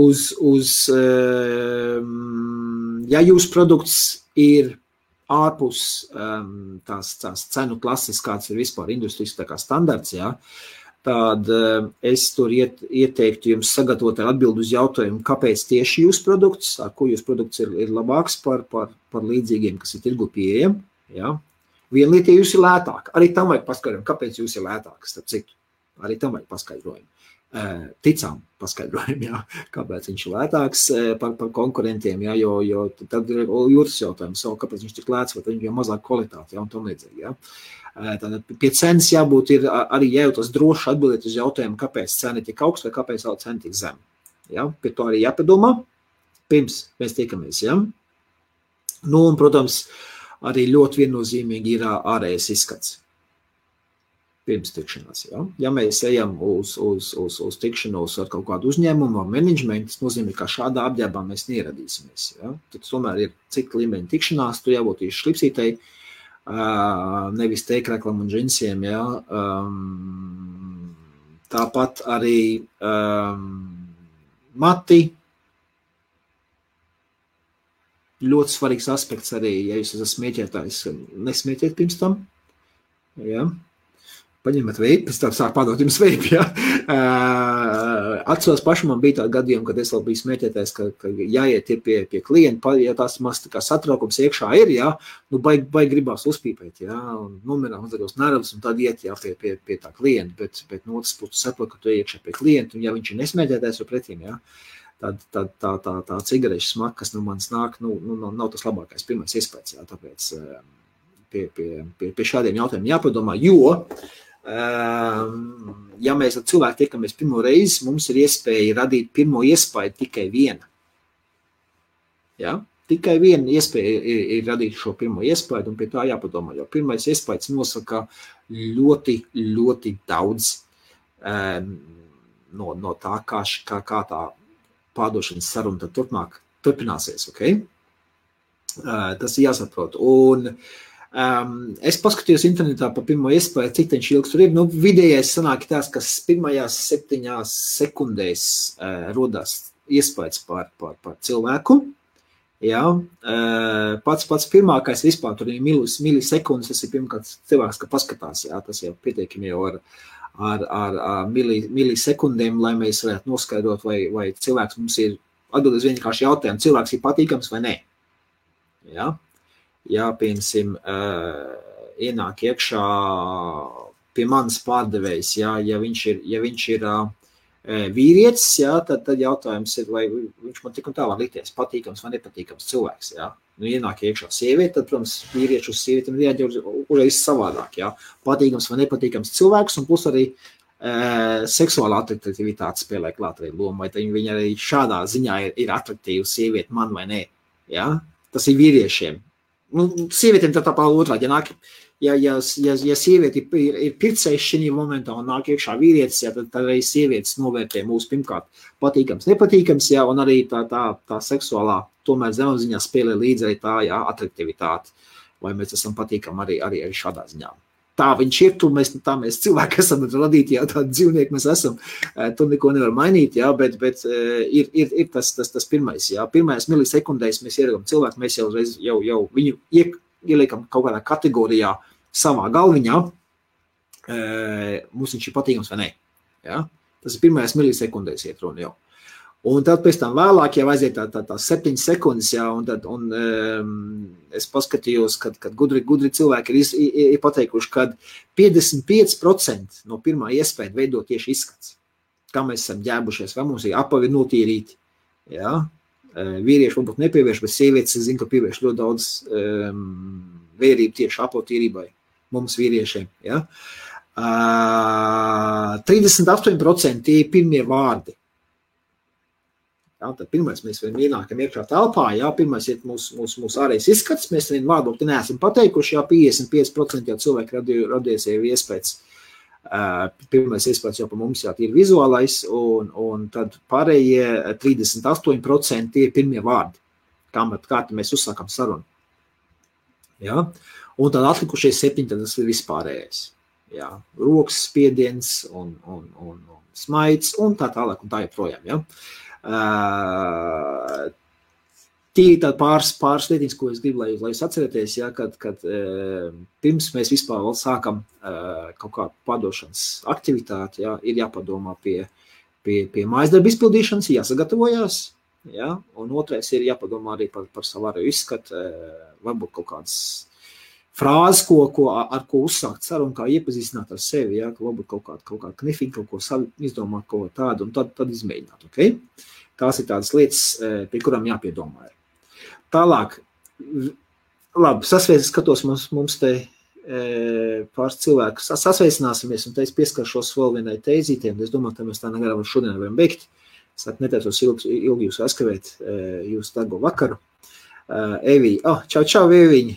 ja jūsu produkts ir ārpus tās cenu klases, kāds ir vispār industrijas tā kā standarts, jā, tad es tur ieteiktu jums sagatavot atbildi uz jautājumu, kāpēc tieši jūsu produkts, ar ko jūsu produkts ir labāks par līdzīgiem, kas ir tirgu pieejami. Ja? Viena lieta, ja jūs ir lētāk, arī tam vajag paskaidrojumu, kāpēc jūs ir lētāks, starp citu. Arī tam vajag paskaidrojumu. Ticām paskaidrojumu, ja? Kāpēc viņš ir lētāks par konkurentiem, ja? Jo tad ir jūtas jautājums, kāpēc viņš tik lēts, vai viņš ir mazāk kvalitāti, ja? Un tam līdzīgi. Ja? Tātad pie cenas jābūt ir arī jājūtas droši atbildēt uz jautājumu, kāpēc cena ir tik augsta vai kāpēc cena tik zem. Ja? Pie to arī jāpadomā, pirms mēs tiekamies. Ja? Nu, un, protams, arī ļoti viennozīmīgi ir ārējais izskats. Pirms tikšanās. Ja, ja mēs ejam uz tikšanos ar kaut kādu uzņēmumu, ar menedžmentu, tas nozīmē, ka šādā apģērbā mēs neieradīsimies. Ja. Tad tomēr ir cik līmeņa tikšanās, tu jābūt īši šlipsītei, nevis teikreklam un džinsiem. Ja. Tāpat arī mati. Ļoti svarīgs aspekts arī, ja jūs esat smieķētājs, nesmieķiet pirms tam. Ja. Paņemat veipi, pēc tam sāk padot jums veipi, ja. Atceros paši man bija tādi gadījumi, kad es vēl biju smieķētājs, ka jāiet ir pie klienta, ja tās maz tā kā satraukums iekšā ir, ja, nu baigi gribās uzpīpēt, ja, un nomirām mazagos nervus, un tad iet, ja, pie tā klienta, bet no otras puses saprot, ka tu iekšā pie klienta, un ja viņš ir nesmieķētājs vai pretīm, ja, tad tā cigarešu smaka, kas no manis nāk, nav tas labākais pirmais iespējas, jā, tāpēc pie šādiem jautājumiem jāpadomā, jo, ja mēs ar cilvēku tiekamies pirmo reizi, mums ir iespēja radīt pirmo iespēju tikai viena. Ja? Tikai viena iespēja ir radīt šo pirmo iespēju, un pie tā jāpadomā, jo pirmais iespējas nosaka ļoti, ļoti daudz no tā, kā tā pārdošanas saruna tad turpmāk turpināsies, ok? Tas ir jāsaprot. Un es paskatījos internetā par pirmo iespēju, cik viņš ilgs tur ir. Nu, vidējais sanāk tās, kas pirmajās 7 sekundēs rodās iespējas par cilvēku. Ja? Pats pirmākais vispār, tur ir milisekundes, tas ir pirmkārt cilvēks, ka paskatās, ja? Tas jau pietiekami jau ar milisekundēm, lai mēs varētu noskaidrot, vai cilvēks mums ir atbildējis vienkārši jautājumu, cilvēks ir patīkams vai nē. Ja? Ja, piemēram, ienāk iekšā pie manas pārdevējs, ja viņš ir vīrietis, jā, tad jautājums ir, vai viņš man tik un tā var likties patīkams vai nepatīkams cilvēks, jā. Nu, ienāk iekšā sieviete, tad, protams, vīrieši uz sievietiem rieģē uzreiz savādāk, jā. Patīkams vai nepatīkams cilvēks, un plus arī seksuāla atraktivitāte spēlē klāt arī lomu, vai viņa arī šādā ziņā ir atraktīva sieviete man vai ne, jā. Tas ir vīriešiem. Nu, sievietiem tā otrādi, ja sievieti ir pircējs šī momentā un nāk iekšā vīrietis, jā, tad arī sievietes novērtē mūsu pirmkārt patīkams, nepatīkams, jā, un arī tā seksuālā tomēr zemapziņā spēlē līdzi arī tā, jā, atraktivitāte, vai mēs esam patīkami arī šādā ziņā. Tā viņš ir, mēs cilvēki esam radīti, jā, tādi dzīvnieki mēs esam, tur neko nevar mainīt, jā, bet ir tas pirmais, jā, pirmais milisekundēs mēs ieragam cilvēku, mēs jau viņu ieliekam kaut kādā kategorijā savā galviņā, mums viņš ir patīkams vai ne, jā, tas ir pirmais milisekundēs iet runa jau. Un tad pēc tam vēlāk jau aiziet tā 7 sekundes, jā, un es paskatījos, kad gudri cilvēki ir pateikuši, kad 55% no pirmā iespēja veidot tieši izskats. Kā mēs esam ģēbušies, vai mums ir apavi notīrīti, jā. Vīrieši varbūt nepievērš, bet sievietes, es zinu, ka pievērš ļoti daudz vērību tieši apatīrībai mums vīriešiem, jā. 38% tie ir pirmie vārdi. Jā, tad pirmais mēs ienākam iekšā telpā, jā, pirmais ir mūsu ārējais izskats, mēs vienu vārdu neesam pateikuši, jā, 55% jau cilvēki radies jau iespējas. Pirmais iespējas jau pa mums jā, ir vizuālais, un tad pārējie 38% ir pirmie vārdi, kā mēs uzsākam sarunu. Jā, un tad atlikušie 7, tad tas ir vispārējais. Jā, rokas spiediens un smaids un tā tālāk un tā joprojām, jā. Tie ir tādi pāris lietiņas, ko es gribu, lai jūs atcerieties, ja, kad pirms mēs vispār vēl sākam kaut kādu pārdošanas aktivitāti, ja, ir jāpadomā pie mājasdarba izpildīšanas, jāsagatavojās, ja, un otrais ir jāpadomā arī par savu ārējo izskatu, varbūt kaut kādas frāzes, ar ko uzsākt sarunu, kā iepazīstināt ar sevi, ja, varbūt kaut kādu knifiņu, kaut ko izdomāt, kaut tādu, un tad izmēģināt, ok? Tās ir tādas lietas, pie kurām jāpiedomā. Tālāk, labi, skatos mums te pāris cilvēku, sasveicināsimies, un te es pieskaršos vēl vienai teizītiem, es domāju, ka mēs tā negarām šodien varam beigt, es netētos ilgi jūs aizskavēt jūsu darbo vakaru. Evī, čau, Eviņi!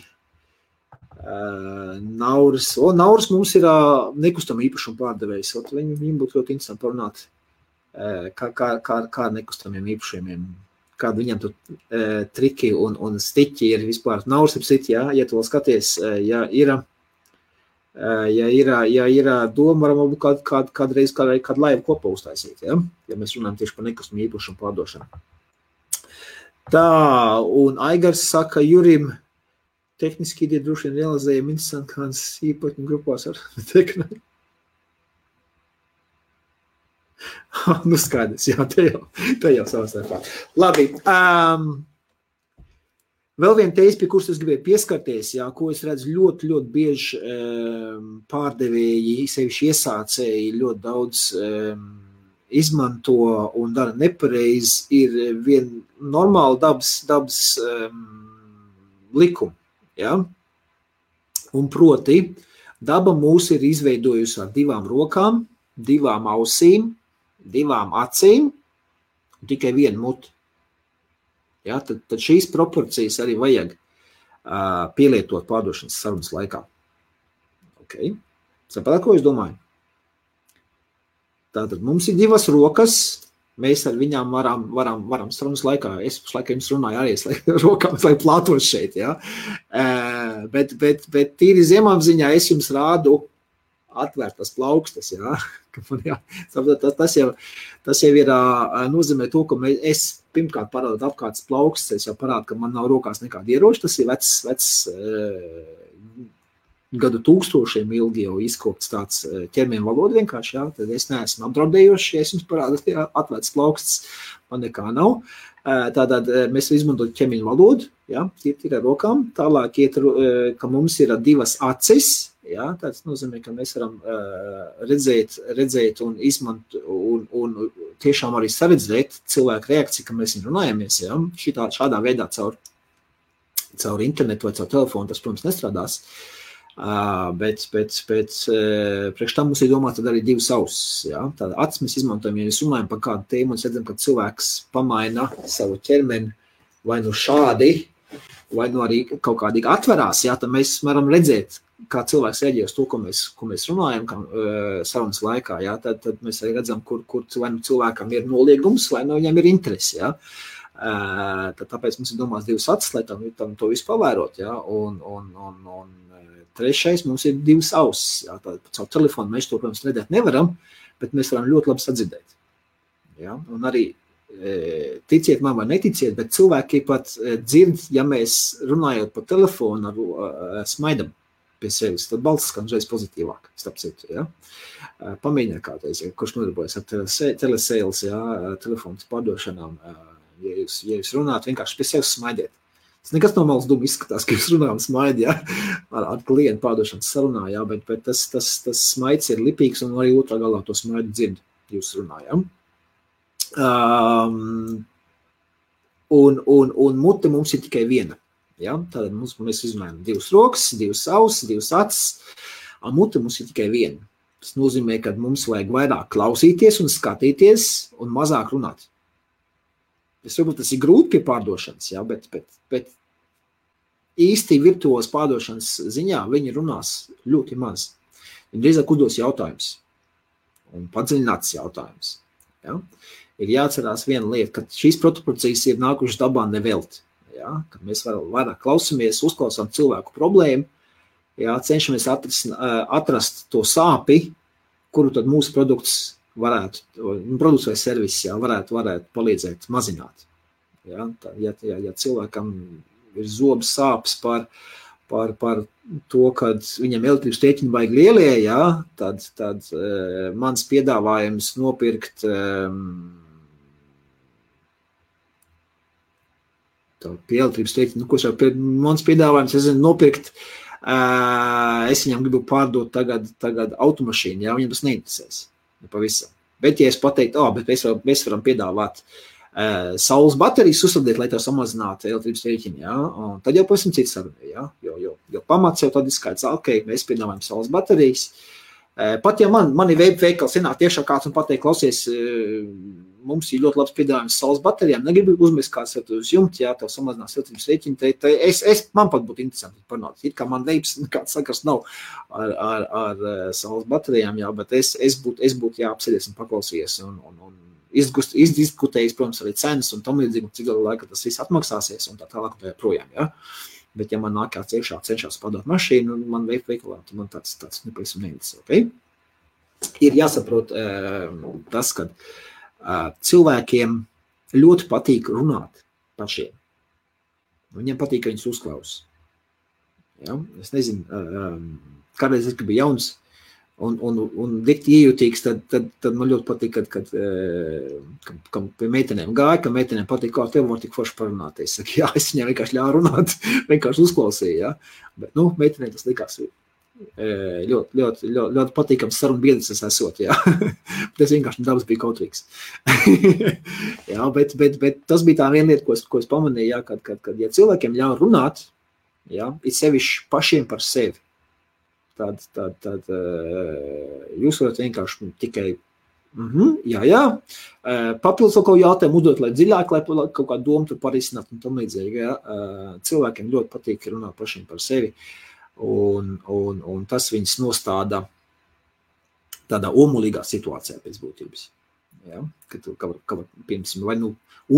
Nauris mums ir nekustama īpašuma pārdevējs, viņam būtu ļoti interesanti parunāt, kā nekustamiem īpašumiem, kāda viņam tur triki un stiķi ir vispār. Nauris ir stiķi, jā, ja tu vēl skaties, ja ir doma, varam kādreiz kādu laivu kopā uztaisīt, ja mēs runājam tieši par nekustamu īpašumu pārdošanu. Tā, un Aigars saka Jurim, tehniski ideja droši vien realizējama interesanti kādas īpatņu grupās ar teknē. Nu skaidrs, jā, te jau savastarpā. Labi, vēl viena teize, pie kuras es gribēju pieskarties, jā, ko es redzu ļoti bieži pārdevēji, sevišķi iesācēji ļoti daudz izmanto un dara nepareizi, ir vien normāli dabas likumi. Ja? Un proti, daba mūs ir izveidojusi ar 2 rokām, 2 ausīm, 2 acīm un tikai 1 muti. Ja? Tad šīs proporcijas arī vajag pielietot pārdošanas sarunas laikā. Okay. Saprāt, ko es domāju? Tātad mums ir 2 rokas, mēs ar viņām varam sarunas laikā, es laikā jums runāju arī rokām, lai plātos šeit, ja? Bet tīri zemapziņā es jums rādu atvērtas plaukstas, ja? Tas jau ir nozīmē to, ka es pirmkārt parādu apkārtas plaukstas, es jau parādu, ka man nav rokās nekāda ieroča, tas ir vecs gadu tūkstošiem ilgi jau izkopts tāds ķermeņa valoda vienkārši, jā, tad es neesmu apdraudējošs, ja es jums parādu, atvērts plaukstas, man nekā nav. Tātad mēs izmantojam ķermeņa valodu, jā, ir ar rokām, tālāk iet, ka mums ir 2 acis, jā, tāds nozīmē, ka mēs varam redzēt un un tiešām arī saredzēt cilvēku reakciju, ka mēs runājamies, ja? Šādā veidā caur internetu vai caur telefonu, tas, protams, nestrādās, bet priekš tam mums ir domāts tad arī divas ausis, ja? Tāda acis mēs izmantojam, ja mēs runājam par kādu tēmu un redzam, ka cilvēks pamaina savu ķermeni vai nu šādi, vai nu arī kaut kādīgi atverās, ja? Tad mēs varam redzēt, kā cilvēks reaģē uz to, ko mēs runājam sarunas laikā, ja? Tad mēs arī redzam, kur vai nu cilvēkam ir noliegums, vai nu viņam ir interesi, ja? Tāpēc mums ir domās divas acis, lai tam to visu pavērot, ja? Un trešais mums ir divas ausis, ja? Caur telefonu mēs to, protams, redzēt nevaram, bet mēs varam ļoti labi sadzirdēt, ja? Un arī ticiet man vai neticiet, bet cilvēki pat dzird, ja mēs runājot pa telefonu smaidam pie sevis, tad balss skan uzreiz pozitīvāk, starp citu, ja? Pamēģiniet kādreiz, ja, kurš nodarbojas ar telesales, ja, telefonas pārdošanām, ja jūs runājat, vienkārši pie sevis smaidiet. Tas nekas no malas duma izskatās, ka jūs runājam smaidi, ja, ar klientu pārdošanas sarunā, ja, bet tas smaids ir lipīgs un arī otrā galā to smaidu dzird, jūs runājam. Un mute mums ir tikai viena. Ja? Tātad mēs izrunājam divas rokas, divas ausis, divas acis, un mute mums ir tikai viena. Tas nozīmē, ka mums vajag vairāk klausīties un skatīties un mazāk runāt. Varbūt tas ir grūti pie pārdošanas, ja? bet īsti virtuos pārdošanas ziņā viņi runās ļoti maz. Viņi drīzāk uzdos jautājums un padziļināts jautājums. Ja? Ir jāatcerās viena lieta, ka šīs proporcijas ir nākušas dabā nevelti. Ja? Kad mēs vairāk klausamies, uzklausām cilvēku problēmu, ja? Cenšamies atrast to sāpi, kuru tad mūsu produkts vai servis, ja? varētu palīdzēt mazināt. Ja? Ja cilvēkam ir zobs sāpes par to, kad viņam elektrības rēķini vajag lielie, ja? tad mans piedāvājums nopirkt pie elektrības rēķina, mans piedāvājums, nopirkt, es viņam gribu pārdot tagad automašīnu, ja, viņam tas neinteresēs, pavisam. Bet, ja es pateiktu, bet mēs varam piedāvāt saules baterijas uzsādīt, lai tev samazinātu elektrības rēķini, ja, un tad jau pavisam cits saruna, ja, jo pamats jau tad ir skaidrs, mēs piedāvājam saules baterijas. Pat ja mani veikals ienāk tiešā kāds un pateikt, klausies, mums ir ļoti labs piedāvājums saules baterijām, negribu uzmest kāds uz jumta, ja tev samazinās elektrības rēķini, man pat būtu interesanti parunāt. It kā man veips, kāds sakars nav ar saules baterijām, jā, bet es būtu jāapsēdies un paklausījies un izdiskutējis, protams, arī cenas un tam līdzīgi, cik galu laika tas viss atmaksāsies un tā tālāk un tā projām, jā. Bet ja man nāk kāds iekšā cenšas padot mašīnu, man veikalā, tad man tāds nepavisam neinteresē, okay? Ir jāsaprot tas, ka cilvēkiem ļoti patīk runāt pašiem. Viņiem patīk, ka viņus uzklaus. Ja? Es nezinu, kādreiz es biju jauns un dikti iejūtīgs, tad man ļoti patīk, kad pie meitenēm gāja, ka meitenēm patīk, kā tev var tik forši parunāt. Es saku, jā, es viņiem vienkārši ļāvu runāt, vienkārši uzklausīju, ja? Bet, meitenēm tas likās ļoti patīkams sarunu biedrs es esot, jā. Tas vienkārši dabas bija kautrīgs. Jā, bet tas bija tā viena lieta, ko es pamanīju, jā, kad ja cilvēkiem ļauj runāt, jā, ir sevišķi pašiem par sevi. Tad jūs varat vienkārši tikai jā, papildus kaut ko jautājumu uzdot, lai dziļāk, lai kaut kā domu tur parisināt un tam līdzīgi, jā. Cilvēkiem ļoti patīk runāt pašiem par sevi. Un tas viņus nostāda tādā omulīgā situācijā pēc būtības. Ja? Kad piemēram, vai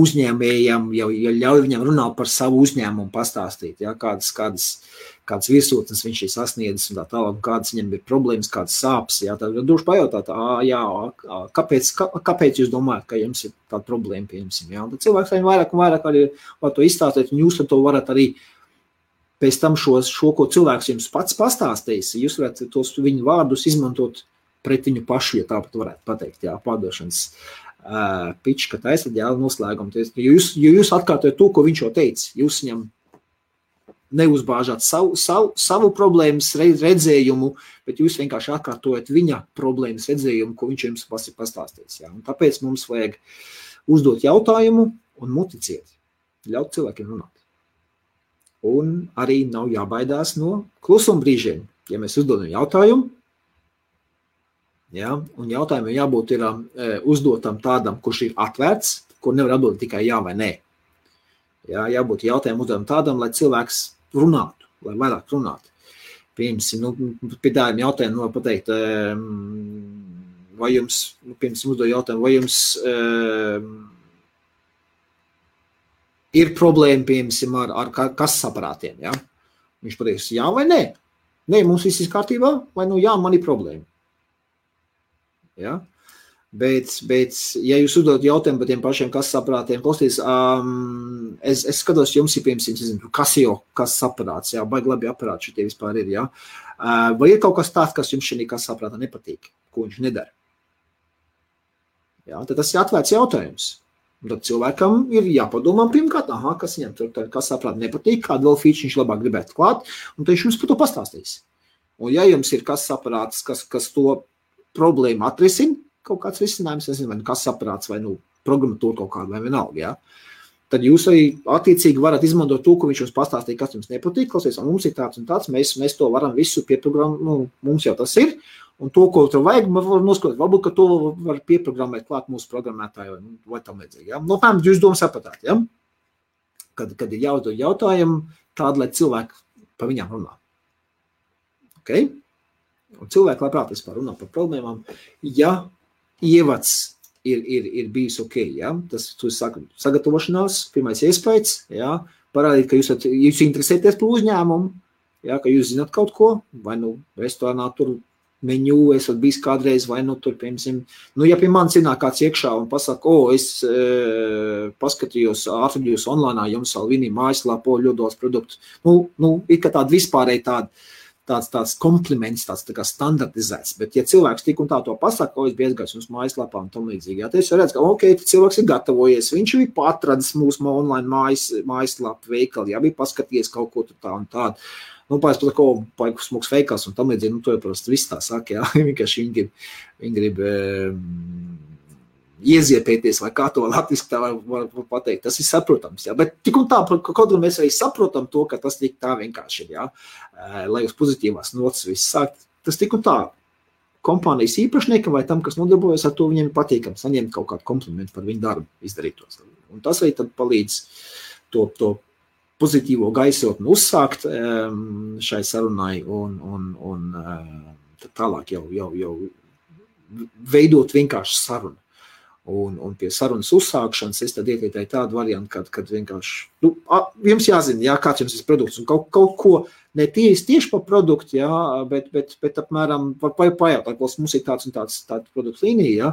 uzņēmējam jau ļauj viņam runāt par savu uzņēmumu, pastāstīt, ja? kādas virsotnes viņš ir sasniedzis un tā tālāk, kādas viņam ir problēmas, kādas sāpes. Ja? Tad droši pajautāt, kāpēc jūs domājat, ka jums ir tāda problēma, pieņemsim. Ja? Tad cilvēks vairāk un vairāk arī var to izstāstīt, un jūs ar to varat arī pēc tam šo, ko cilvēks jums pats pastāstīs, jūs varat tos viņu vārdus izmantot pret viņu pašu, ja tāpat varētu pateikt, jā, pārdošanas pitch, ka taisat, jā, noslēgumu. Jo jūs atkārtojat to, ko viņš jau teica. Jūs viņam neuzbāžāt savu problēmas redzējumu, bet jūs vienkārši atkārtojat viņa problēmas redzējumu, ko viņš jums pastāstīs. Ja? Un tāpēc mums vajag uzdot jautājumu un muticiet, ļaut cilvēkiem runāt. Un arī nav jābaidās no klusumbrīžiem. Ja mēs uzdodam jautājumu, ja, un jautājumam jābūt ir uzdotam tādam, kurš ir atvērts, kur nevar atbildēt tikai jā vai nē. Ja, jābūt jautājumu uzdodam tādam, lai cilvēks runātu, lai vairāk runātu. Pie tādiem jautājumiem var pateikt, vai jums, uzdod jautājumu, vai jums ir problēma, ar kases aparātiem, ja? Viņš pateiks, jā vai nē? Nē, mums viss ir kārtībā, vai jā, man ir problēma. Ja? Bet, ja jūs uzdod jautājumu par tiem pašiem kases aparātiem, klausties, es skatos, jums ir, piemēram, kases aparāts, jā, baigi labi aparāti šitie vispār ir, jā. Vai ir kaut kas tāds, kas jums šī kases aparātā nepatīk, ko viņš nedara? Jā, tad tas ir atvērts jautājums. Un tad cilvēkam ir jāpadomā pirmkārt, kas viņam tur kases aparāti nepatīk, kādu vēl feature viņš labāk gribētu klāt, un tad viņš jums par to pastāstīs. Un ja jums ir kases aparāts, kas to problēmu atrisina, kaut kāds risinājums, nezinu, vai kases aparāts, vai programmatūra kaut kāda, vai vienalga, ja? Tad jūs arī attiecīgi varat izmantot to, ko viņš jums pastāstīja, kas jums nepatīk, klausies, un mums ir tāds un tāds, mēs to varam visu pieprogrammēt, mums jau tas ir, un to, ko tur vajag, var noskatīt, varbūt, ka to var pieprogrammēt klāt mūsu programmētāju, vai tam līdzīgi, ja? Tām jūs domu sapratāt, ja? Kad ir jāuzdod jautājumu tādu, lai cilvēki par viņām runā. Okay? Un cilvēki labprāt vispār runā par problēmām, ja ievads ir bijis ok, ja? Tas sagatavošanās, pirmais iespējas, ja? Parādīt, ka jūs interesēties par uzņēmumu, ja? Ka jūs zināt kaut ko, vai restorānā tur menu esat bijis kādreiz, vai tur, piemēram, ja pie manis ienāk kāds iekšā un pasaka, es paskatījos, atradījos online, jums Salvini mājaslapā ļoti daudz produktu. Ir kā tāda vispārēji tāds kompliments, tāds tā kā standartizēts, bet ja cilvēks tik un tā to pasaka, es biju aizgājis mums mājaslapā un tam līdzīgi, ja, tad es redzu, ka cilvēks ir gatavojies, viņš ir patradis mūsu online mājaslapu veikali, ja, bija paskatījies kaut ko tā un tādu. Pārēc pat, paiku smuks veikals un tam līdzīgi, to jau parasti viss tā saka, jā, vienkārši viņi grib ieziepēties, vai kā to latviski tā var pateikt, tas ir saprotams, jā, bet tik un tā, kaut gan mēs arī saprotam to, ka tas tik tā vienkārši ir, jā, lai uz pozitīvās notas viss sākt, tas tik un tā kompānijas īpašniekam vai tam, kas nodarbojas ar to, viņiem ir patīkam saņemt kaut kādu komplimentu par viņu darbu izdarītos. Un tas arī tad palīdz to pozitīvo gaisotni uzsākt šai sarunai un tālāk jau veidot vienkārši sarunu. Un pie sarunas uzsākšanas es tad ieteicu tādu variantu, kad vienkārši, jums jāzina, jā, kāds jums ir produkts, un kaut ko ne tieši par produktu, jā, bet apmēram var pajautāt, mums ir tāds un tāds produktu līnija, jā,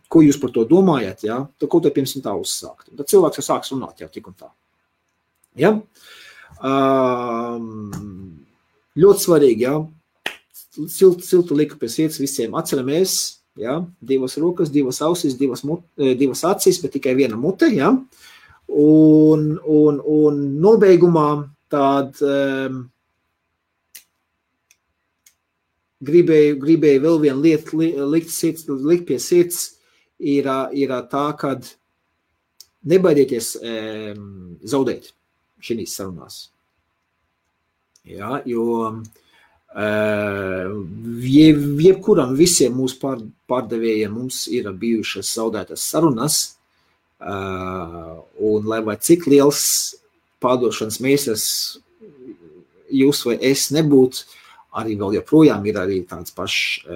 ko jūs par to domājat, jā, tad ko te pirms tā uzsākt. Tad cilvēks jau sāks runāt jau tik un tā. Ja? Ļoti svarīgi, jā, siltu liku pie sirds visiem atceramies, ja, 2 rokas, 2 ausis, 2 acis, bet tikai viena mute, ja, un nobeigumā tād gribēju vēl vienu lietu likt pie sirds, ir tā, kad nebaidieties zaudēt šīs sarunās. Ja, jo jebkuram visiem mūsu pārdevējiem mums ir bijušas zaudētas sarunas, un lai vai cik liels pārdošanas meistars jūs vai es nebūtu, arī vēl joprojām ir arī tāds pašs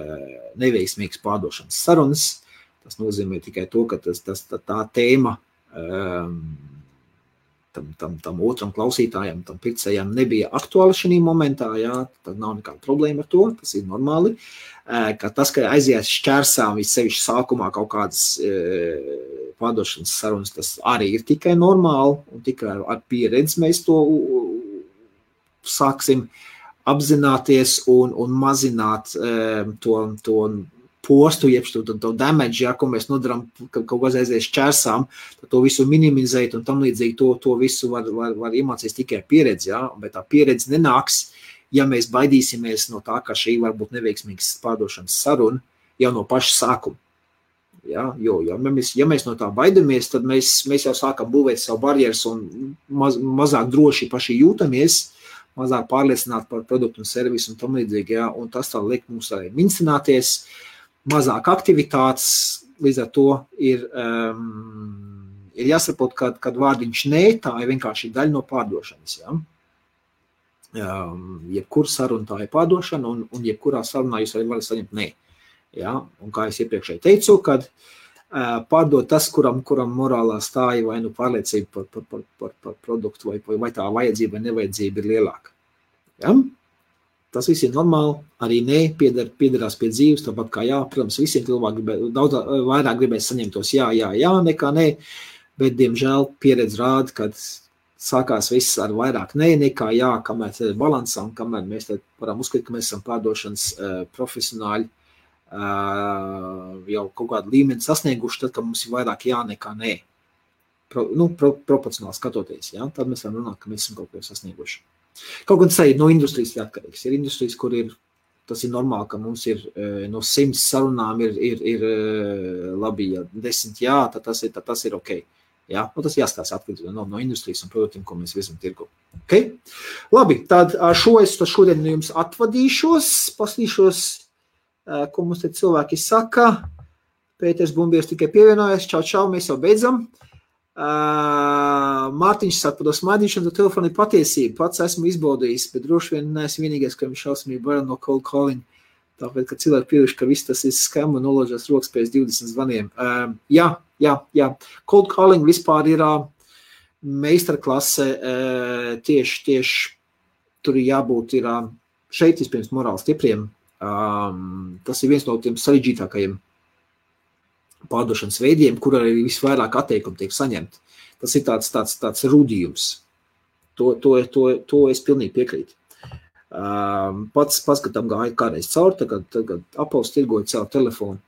neveiksmīgs pārdošanas sarunas. Tas nozīmē tikai to, ka tā tēma tam otram klausītājam, tam pircējam nebija aktuāla šī momentā, jā, tad nav nekāda problēma ar to, tas ir normāli. Ka tas, ka aizies šķērsām vissevišķi sākumā kaut kādas pārdošanas sarunas, tas arī ir tikai normāli, un tikai ar pieredzi mēs to sāksim apzināties un mazināt to postu, jeb to damage, ja, ko mēs nodaram, kaut kas aizies čērsām, tad to visu minimizēt un tam līdzīgi to visu var iemācīties tikai pieredzi, ja, bet tā pieredze nenāks, ja mēs baidīsimies no tā, ka šī var būt neveiksmīgas pārdošanas saruna jau no paša sākuma. Ja, jo ja mēs no tā baidamies, tad mēs jau sākam būvēt savu barjeras un mazāk droši paši jūtamies, mazāk pārliecināti par produktu un servisu un tam līdzīgi, ja, un tas tā liek mums arī mincināties, mazāk aktivitātes, līdz ar to ir jāsaprot, kad vārdiņš nē, tā ir vienkārši daļa no pārdošanas, ja. Jebkur saruna tā ir pārdošana, un jebkurā sarunā jūs arī varat saņemt nē. Ja? Un kā es iepriekšēji teicu, kad pārdot tas, kuram morālā stāja vai nu pārliecība par produktu, vai tā vajadzība vai nevajadzība ir lielāka. Ja? Tas viss ir normāli, arī nē, piederās pie dzīves, tāpat kā jā, protams, visiem cilvēki daudz vairāk gribēs saņemt tos jā, nekā nē, bet, diemžēl, pieredze rāda, kad sākās viss ar vairāk nē, nekā jā, kamēr tad ir balansā un kamēr mēs tad varam uzskatīt, ka mēs esam pārdošanas profesionāļi, jau kaut kādu līmeni sasnieguši, tad, ka mums ir vairāk jā nekā nē. Proporcionāli skatoties, ja? Tad mēs varam runāt, ka mēs esam kaut ko sasnieguši. Kaut gan tas ir no industrijas atkarīgs. Ir industrijas, kur tas ir normāli, ka mums ir no 100 sarunām ir labi, ja 10 jā, tad tas ir ok. Ja? Tas jāstās atkarīgi no industrijas un produktiem, ko mēs virzam tirgu. Okay? Labi, tad šodien jums atvadīšos, paslīšos, ko mums te cilvēki saka. Pēters Bumbieris tikai pievienojas. Čau, mēs jau beidzam. Mārtiņš saka, par to smaidīšanu, to telefonu ir patiesība. Pats esmu izbaudījis, bet droši vien neesmu vienīgais, ka viņš šausmīgi bail no cold calling. Tāpēc, ka cilvēki pieviši, ka viss tas ir scam un noloģās rokas pēc 20 zvaniem. Jā. Cold calling vispār ir meistarklase. Tieši tur ir jābūt šeit vispirms morāli stipriem. Tas ir viens no tiem sarežģītākajiem pārdošanas veidiem, kur arī visvairāk atteikumu tiek saņemt. Tas ir tāds rudījums. To es pilnīgi piekrītu. Pats, kad tam gāja kādreiz cauri, tagad Apples tirgoja caur telefonu.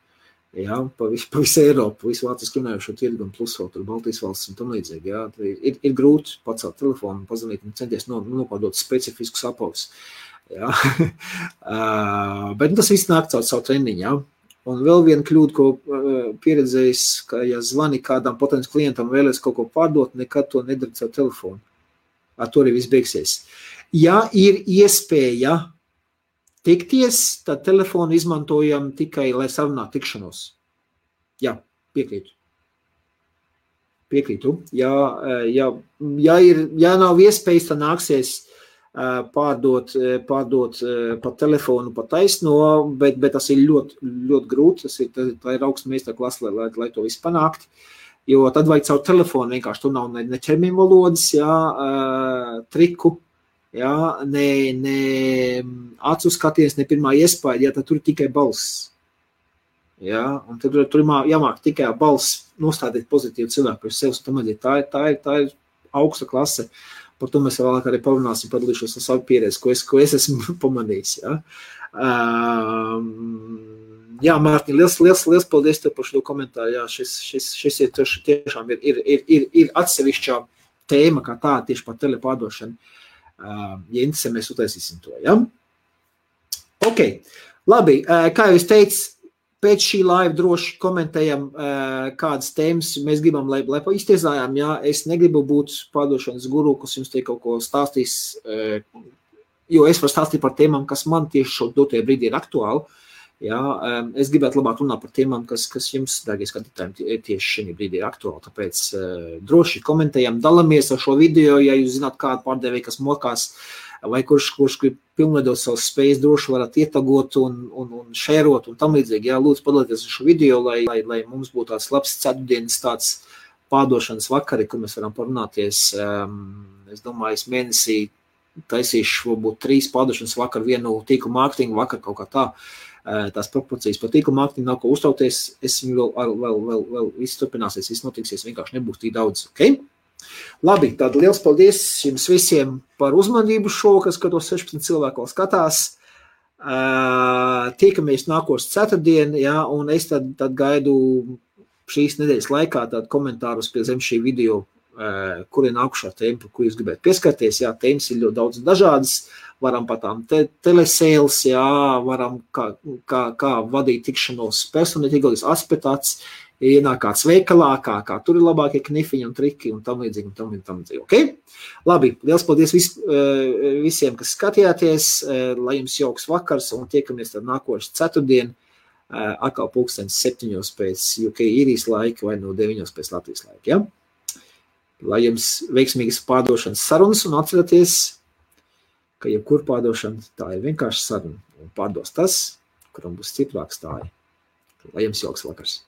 Ja, pa visu Eiropu, visu Vācijas runājušo tirgu un plus vēl tur Baltijas valsts un tam līdzīgi. Ja. Ir grūti pacelt telefonu, pazvanīt un centies nopārdot specifiskus Apples. Ja. Bet tas viss nāk caur savu treniņu. Ja. Un vēl viena kļūda, ko pieredzējis, ka ja zvani kādam potenciālam klientam vēlēs kaut ko pārdot, nekad to nedara caur telefonu. Ar to arī viss beigsies. Ja ir iespēja tikties, tad telefonu izmantojam tikai, lai sarunātu tikšanos. Jā, piekrītu. Ja nav iespējas, tad nāksies pārdot pa telefonu, pa taisno, bet tas ir ļoti, ļoti grūti. Tā ir augsta meistarklase, lai to visu panākt. Jo tad vajag caur telefonu vienkārši. Tur nav ne ķermeņa valodas, triku, ne acu skaties, ne pirmā iespēja, tad tur ir tikai balss. Un tad tur jāmāk tikai balss nostādīt pozitīvu cilvēku pēc sevis. Tā ir augsta klase. Par to mēs vēlāk arī parunāsim, padalīšos ar savu pieredzi, ko es esmu pamanījis. Mārtiņ, liels paldies tev par šo komentāru. Jā, šis ir tiešām ir atsevišķā tēma, kā tā, tieši par telepārdošanu. Ja interesē, mēs utaisīsim to. Ja? Ok, labi, kā jau es teicu, pēc šī laiva droši komentējam, kādas tēmas mēs gribam, lai iztiesājām. Ja? Es negribu būt pārdošanas guru, kas jums te kaut ko stāstīs, jo es varu stāstīt par tēmām, kas man tieši šo dotajā brīdī ir aktuāli. Ja? Es gribētu labāk runāt par tēmām, kas jums, dārgie skatītājiem, tieši šī brīdī ir aktuāli. Tāpēc droši komentējam, dalamies ar šo video, ja jūs zināt kādu pārdevēju, kas mokās, vai kurš grib pilnveidot savas spējas, droši varat ietagot un šērot un tam līdzīgi. Jā, lūdzu padalieties ar šo video, lai mums būtu tāds labs ceturtdienas tāds pārdošanas vakari, kur mēs varam parunāties. Es domāju, es mēnesī taisīšu varbūt 3 pārdošanas vakaru, vienu tīklu mārketingu vakaru kaut kā tā. Tās proporcijas par tīklu mārketingu nav ko uztauties. Es viņu vēl viss turpināsies, viss notiksies, vienkārši nebūs tik daudz. Okay? Labi, tad liels paldies jums visiem par uzmanību šovakar, skatos 16 cilvēku vēl skatās. Tiekamies nākošu ceturtdien, jā, un es tad gaidu šīs nedēļas laikā tādu komentārus pie zem šī video, kur ir nākušā tēma, par ko jūs gribētu pieskarties. Jā, tēmas ir ļoti daudz dažādas, varam par tām telesēles, jā, varam kā vadīt tikšanos personītīgos aspektāts, ienāk kāds veikalā, kā tur ir labākie knifiņi un triki un tam līdzīgi un tam līdzīgi. Okay? Labi, liels paldies visiem, kas skatījāties, lai jums jauks vakars un tiekamies tad nākošu ceturtdien, atkal 7:00 pēc UK īrijas laika vai no 9:00 pēc Latvijas laika. Ja? Lai jums veiksmīgas pārdošanas sarunas un atcerieties, ka jebkur pārdošana tā ir vienkārši saruna un pārdos tas, kuram būs stiprāks tā ir. Lai jums jauks vakars.